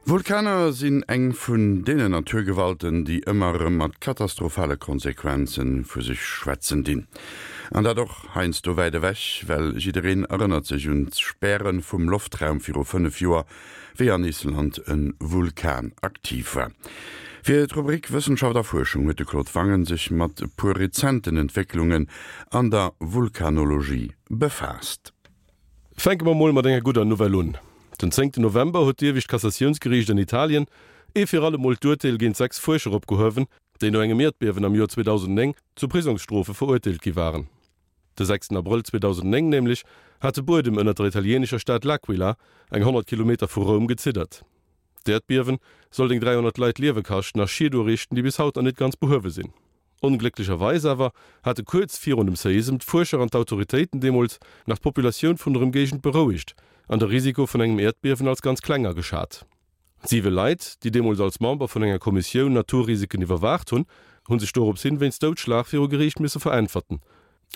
Vulkaner sinn eng vun deenen Naturgewalten, déi ëmmer erëm mat katastrophale Konsequenze vu sech schwätzen dinn. An dat och heiansdo wäit ewech, well jiddereen erënnert sech un d'Späre vum Loftraum viru 5 Joer, wéi an Island e Vulkan aktiv war. Fir d'Rubrik Wëssenschaft a Fuerschung huet de Claude Wangen sech mat e puer rezenten Entwécklungen an der Vulkanologie befaasst. Fänke mer mol mat enger gudder Nouvelle un. Den zéngten November huet d'iewescht Kassatiounsgeriicht an Italien ee fir alle Mol d'Urteel géint 6 Fuerscher opgehuewen, déi no engem Ierdbiewen am Joer 2009 zu Prisongsstrofe verurteelt gi waren. De sechsten Abrëll 2009 nämlech hat de Buedem ënnert der italieenescher Stad L'Aquila, eng 100 Kilometer vu Roum, geziddert. D'Äerdbiewen sollt eng 300 Leit d'Liewe kaschten a Schied uriichten, déi bis haut nach net ganz behuewe sinn. Onglécklecherweis awer hate kuerz virun dem Séisem d'Fuerscher an d'Autoritéiten deemools nach d'Populatioun vun der Ëmgéigend berouegt an de Risiko vun engem Äerdbiewen als ganz kleng ageschat. Siwe Leit, déi deemools als Member vun enger Kommissioun Naturrisiken iwwerwaacht hunn, hu sech dorops hin wéinst Doudschlag viru Geriicht misse veräntwerten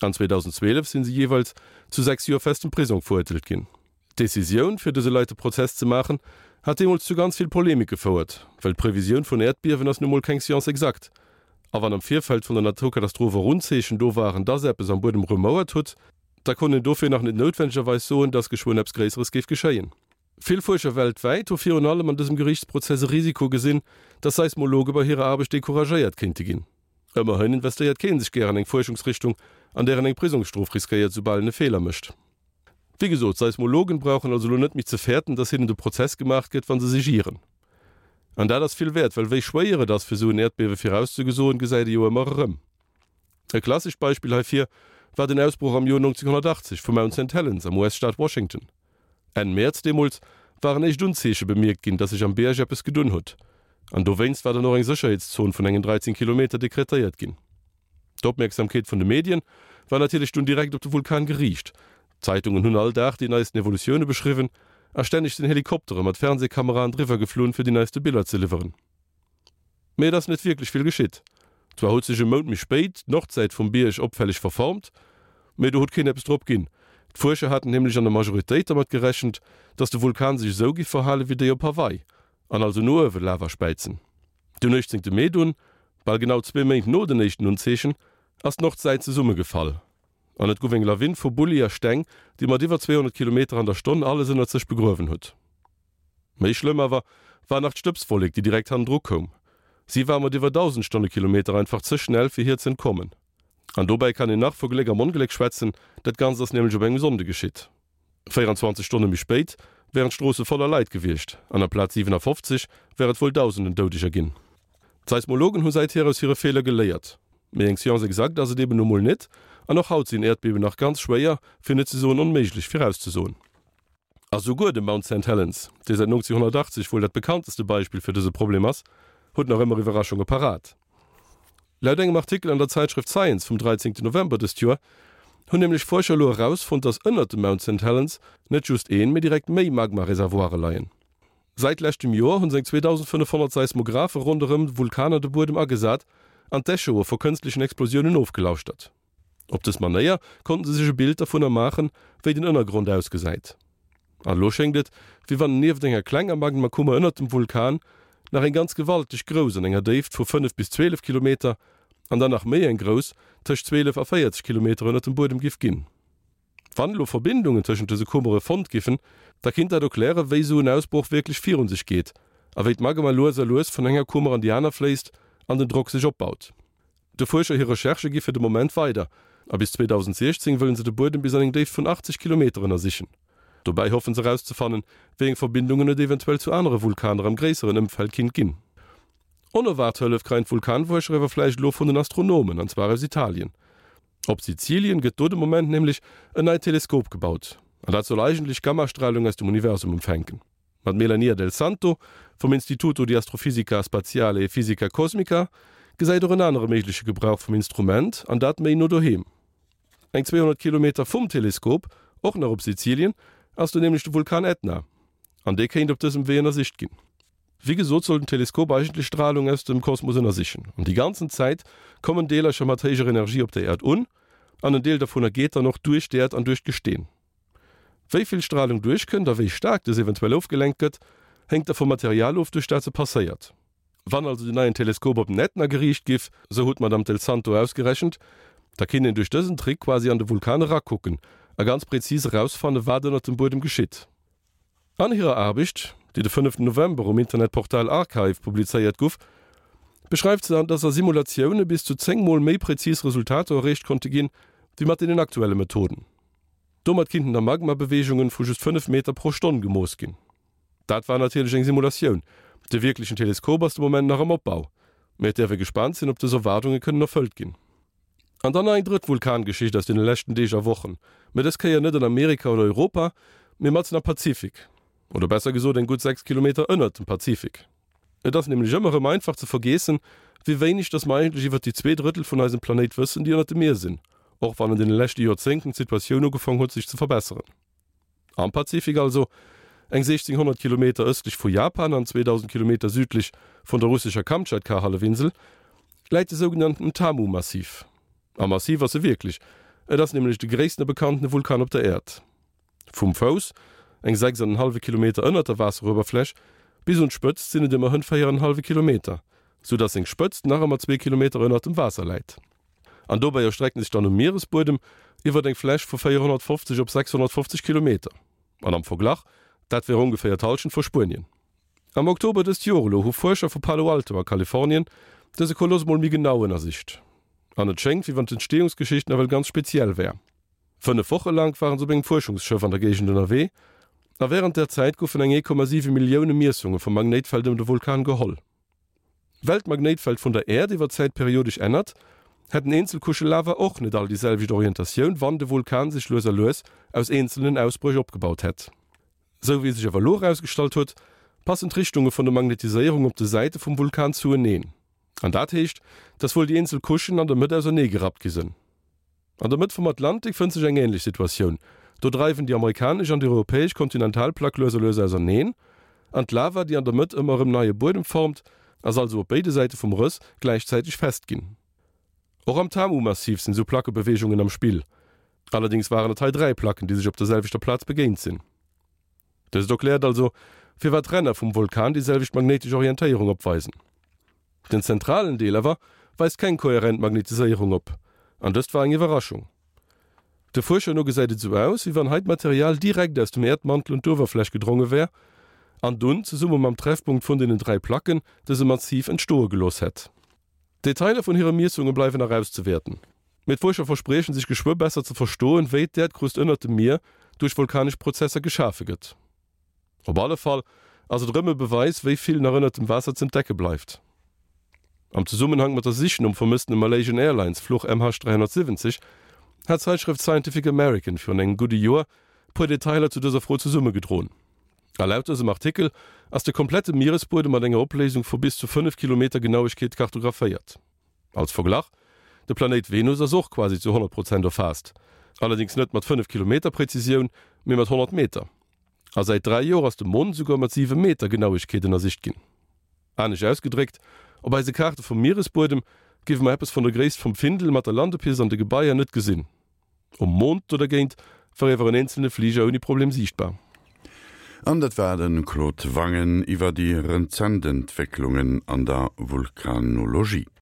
an 2012 sinn se jeeweils zu 6 Joer festem Prisong verurteelt ginn. D'Decisioun, fir dëse Leit de Prozess ze maachen, hat deemools zu ganz vill Polemik gefouert, well d'Previsioun vun Äerdbiewen ass nu mol keng Science exacte. A wann am Virfeld vun der Naturkatastroph och Unzeechen do waren, dass eppes am Buedem rumouert hutt, da konnt een dofir nach net noutwendegerweis soen, dass geschwënn eppes Gréisseres géif geschéien. Vill Fuerscher weltwäit hu virun allem an dësem Geriichtsprozess e Risiko gesinn, dass Seismologe bei hirer Aarbecht decouragéiert kéinte ginn. Ëmmerhin investéiert kee sech gär an eng Fuerschungsrichtung, an där en eng Prisongsstrof riskéiert, soubal en e Feeler mécht. Wéi gesot, Seismologen brauchen also elo net méi ze fäerten, dass hinnen de Prozess gemaach gëtt, wa se sech ieren. An dat ass vill wäert, well wéi schwéier et ass, fir esou en Äerdbiewe virauszegesoen, gesäit ee jo ëmmer erëm. E klassescht Beispill heifir war den Ausbroch am Joer 1980 vu Mount Saint Helens am US-Staat Washington. Enn Mäerz deemools waren éischt Unzeeche bemierkt ginn, dass sech am Bierg eppes gedunn hutt. An dowéinst war dann och eng Sécherheetszon vun engen 13 Kilometer dekretéiert ginn. D'Opmierksamkeet vun de Medien war natierlech dunn direkt op de Vulkan geriicht. D'Zeitungen hunn all Dag déi neisten Evolutioune beschriwwen a stänneg sinn Helikoptere mat Fernsehkameraen driwwer geflunn, fir déi neiste Biller ze liwweren. Mee et ass net wierklech vill geschitt. Zwar huet sech e Mount méi spéit d'Nordsäit vum Bierg opfälleg verformt, mee do huet keen eppes drop ginn. D'Fuerscher haten nämlech an der Majoritéit dermat gerechent, datt de Vulkan sech esou giff verhale wéi déi op Hawaii an also no uewe Lava späizen. Den 18 Mee dunn, bal genau zwee Méint no den éischten Unzeechen, ass d'Nordsäit zesummegefall an et guff eng Lawin vu Bulli a Steng, déi mat iwwer 200 Kilometer an der Stonn alles ënnert sech begruewen huet. Méi schlëmm awer war nach d'Stëbswollek, déi direkt hannendru koum. Si war mat iwwer 1.000 Stonnekilometer einfach ze schnell, fir hir z'entkommen. An dobäi kann een nach vu Gléck am Ongléck schwätzen, dat Ganzt ass nämlech op engem Sonnde geschitt. 24 Stonne méi spéit wären d'Stroosse voller Leit gewiescht an amplaz 57 wär et wuel Dausenden Doudeger ginn. D'Seismologen hu säithier aus hire Feeler geléiert. Mee eng Science exacte ass et eben nu mol net an och haut sinn Äerdbiewen nach ganz schwéier, fir net ze soen onméiglech, virauszesoen. A souguer de Mount Saint Helens, dee säit 1980 wuel dat bekannteste Beispill fir dëse Problem ass, huet nach ëmmer Iwwerraschunge parat. Laut engem Artikel an der Zäitschrëft Science vum 13 November dëst Joer hunn nämlech Fuerscher elo erausfonnt, dass ënnert dem Mount Saint Helens net just een, mee direkt méi Magma-Reservoire leien. Säit leschtem Joer hunn seng 2.500 Seismographe ronderëm Vulkaner de Buedem agesat an d'Echoe vu kënstlechen Explosiounen ofgelauschtert. Op dës Manéier konnten se sech e Bild dervunner maachen, wéi den Ënnergrond ausgesäit. An elo schéngt et, wéi wann nieft enger klenger Magmakummer ënnert dem Vulkan nach eng ganz gewalteg grouss an enger Déift vu 5 bis 12 Kilometer an dann nach méi eng grouss tëscht 12 a 40 Kilometer ënnert dem Buedem giff ginn. Wann elo Verbindungen tëschent dëse Kummere fonnt giffen, da kinnt dat erklären, wéi esou en Ausbroch wierklech virun sech geet a wéi d'Magma lues a lues vun enger Kummer an déi aner fléisst an den Drock sech opbaut. De Fuerscher hir Recherchë gi fir de Moment weider a bis 2016 wëllen se de Buedem bis an eng Déift vun 80 Kilometer ënnersichen. Dobäi hoffen se erauszefannen, wéi eng Verbindungen et eventuell zu anere Vulkaner am gréisseren Ëmfeld kinnt ginn. Onerwaart Hëllef kreien d'Vulkanfuerscher awer vläicht elo vun den Astronomen, an zwar aus Italien. Op Sizilien gëtt do de Moment nämlech en neit Teleskop gebaut an dat soll eigentlech Gammastralung aus dem Universum empfänken. Mat Melania Del Santo vum Istituto di Astrofisica Spaziale e Fisica Cosmica gesäit och en anere méigleche Gebrauch vum Instrument, an dat méi no doheem. Eng 200 Kilometer vum Teleskop, och nach op Sizilien, ass do nämlech de Vulkan Ätna, an dee kéint op dësem Wee ënnersicht ginn. Wéi gesot soll den Teleskop eigentlech Stralung aus dem Kosmos ënnersichen, an déi ganzen Zäit kommen Deelercher mat héijer Energie op der Äerd un, an en Deel dovunner geet dann och duerch d'Äerd an duerch d'Gesteen. Wéi vill Stralung duerchkënnt a wéi staark dës eventuell ofgelenkt gëtt, Héngt da vum Material of, duerch dat se passéiert. Wann also den neien Teleskop op den Ätna geriicht giff, sou huet d'Madame Del Santo ausgerechent, da kinnt een duerch dësen Trick quasi an de Vulkan erakucken a ganz präzis erausfanne wat ënnert dem Buedem geschitt. An hirer Aarbecht, déi de fënneften November um Internetportal Archive publizéiert guff, beschreift se, dass a Simulatioune bis zu 10 mol méi präzis Resultater erreecht konnte ginn, wéi mat deenen aktuelle Methoden. Domat kinnten da Magmabeweegungen vu just 5 Meter pro Stonn gemooss ginn. Dat war natierlech eng Simulatioun, de wierklechen Teleskop ass de Moment nach am Opbau. Mee et däerf ee gespaant sinn, ob dës Erwaardunge kënnen erfëllt ginn. An dann nach eng drëtt Vulkangeschicht aus deene leschten Deeg a Wochen, mä dës Kéier net an Amerika oder Europa, mee matzen am Pazifik. Oder besser gesot eng gutt 6 Kilometer ënnert dem Pazifik. Et ass nämlech ëmmer erëm einfach ze vergeessen, wéi wéineg dass mer eigentlech iwwert déi 2 Drëttel vun eisem Planéit wëssen, déi ënnert dem Mier sinn, och wann an deene leschte Joerzéngten d'Situatioun ugefong huet sech ze verbesseren. Am Pazifik also, eng 1.600 Kilometer ëstlech vu Japan an 2.000 Kilometer südlech vun der russescher Kamtschatka-Hallefinsel, läit de sougenannten Tamu-Massiv. A massiv ass e wierklech, et ass nämlech de gréisstene bekannte Vulkan op der Äerd. Vum Fouss, eng 6 an en hallwe Kilometer ënnert der Waasseruewerfläch, bis un d'Spëtzt sinn et ëmmerhënn 4 an en hallwe Kilometer, sou datt seng Spëtzt nach ëmmer zwee Kilometer ënnert dem Waasser läit. An dobäi erstreckt en sech dann um Mieresbuedem iwwert eng Fläch vu 450 op 650 Kilometer. An am Verglach, dat wär ongeféier d'Hallschent vu Spuenien. Am Oktober dëst Joer elo hu Fuerscher vu Palo Alto a Kalifornien dëse Koloss mol méi genau ënnersicht. An et schéngt, wéi wann d'Entstehungsgeschicht nawell ganz speziell wär. 5 Woche laang waren se op engem Fuerschungsschëff an der Géigend ënnerwee, a wärend där Zäit goufen eng 1,7 Millioune Miessunge vum Magnéitfeld ëm de Vulkan geholl. Well d'Magnéitfeld vun der Äerd iwwer d'Zäit periodesch ännert, hätten eenzel Couchë Lava och net all déi selwecht Orientatioun, wann de Vulkan sech lues a lues aus eenzelnen Ausbréch opgebaut hätt. Sou wéi sech awer elo erausgestallt huet, passen d'Richtunge vun der Magnetiséierung op de Säite vum Vulkan zueneen. An dat heescht, dass wuel déi eenzel Couchen an der Mëtt ausernee gerappt gi sënn. An der Mëtt vum Atlantik fënnt sech eng änlech Situatioun, do dreiwen déi amerikanesch an déi europäesch Kontinentalplack lues a lues auserneen, an d'Lava, déi an der Mëtt ëmmer erëm neie Buedem formt, ass also op béide Säite vum Rëss gläichzäiteg fest ginn. Och am Tamu-Massiv sinn esou Plackebeweegungen am Spill, allerdéngs waren et hei 3 Placken, déi sech op der selwechter Plaz begéint sinn. Dëst erkläert also, firwat d'Ränner vum Vulkan déi selwecht magnéitesch Orientéierung opweisen. Den zentralen Deel awer weist keng kohärent Magnetiséierung op, an dëst war eng Iwwerraschung. De Fuerscher no gesäit et esou aus, wéi wann hei d'Material direkt aus dem Äerdmantel un d'Uewerfläch gedronge wär an dunn, zesumme mam Treffpunkt vun deenen 3 Placken, dëse Massiv entstoe gelooss hätt. D'Detailer vun hire Miessunge bleiwen nach auszewäerten, mee d'Fuerscher verspriechen sech geschwë besser ze verstoen, wéi d'Äerdkrust ënnert dem Mier duerch vulkanesch Prozesser geschafe gëtt. Op alle Fall ass et erëm e Beweis, wéi vill nach ënnert dem Waasser z'entdecke bleift. Am Zesummenhank mat der Sich nom vermësstene Malaysian Airlines Fluch MH370 hat d'Zeitschrëft Scientific American virun engem gudde Joer puer Detailer zu dëser Fro zesummegedroen. A laut dësem Artikel ass de komplette Mieresbuedem mat enger Opléisung vu bis zu 5 Kilometer Genauegkeet kartographéiert. Als Verglach, De Planéit Venus ass och quasi zu 100 Prozent erfaasst, allerdéngs net mat 5 Kilometer Präzisioun, mee mat 100 Meter. A säit 3 Joer ass de Mond esouguer mat 7 Meter Genauegkeet ënnersicht ginn. Anescht ausgedréckt, Op eise Kaarte vum Mieresbuedem géife mer eppes vun der Gréisst vum Findel mat der Landepist an de Gebaier net gesinn. Um Mond do dergéint war iewer en eenzelne Fliger ouni Problem siichtbar. An dat war de Claude Wangen iwwer déi rezent Entwécklungen an der Vulkanologie.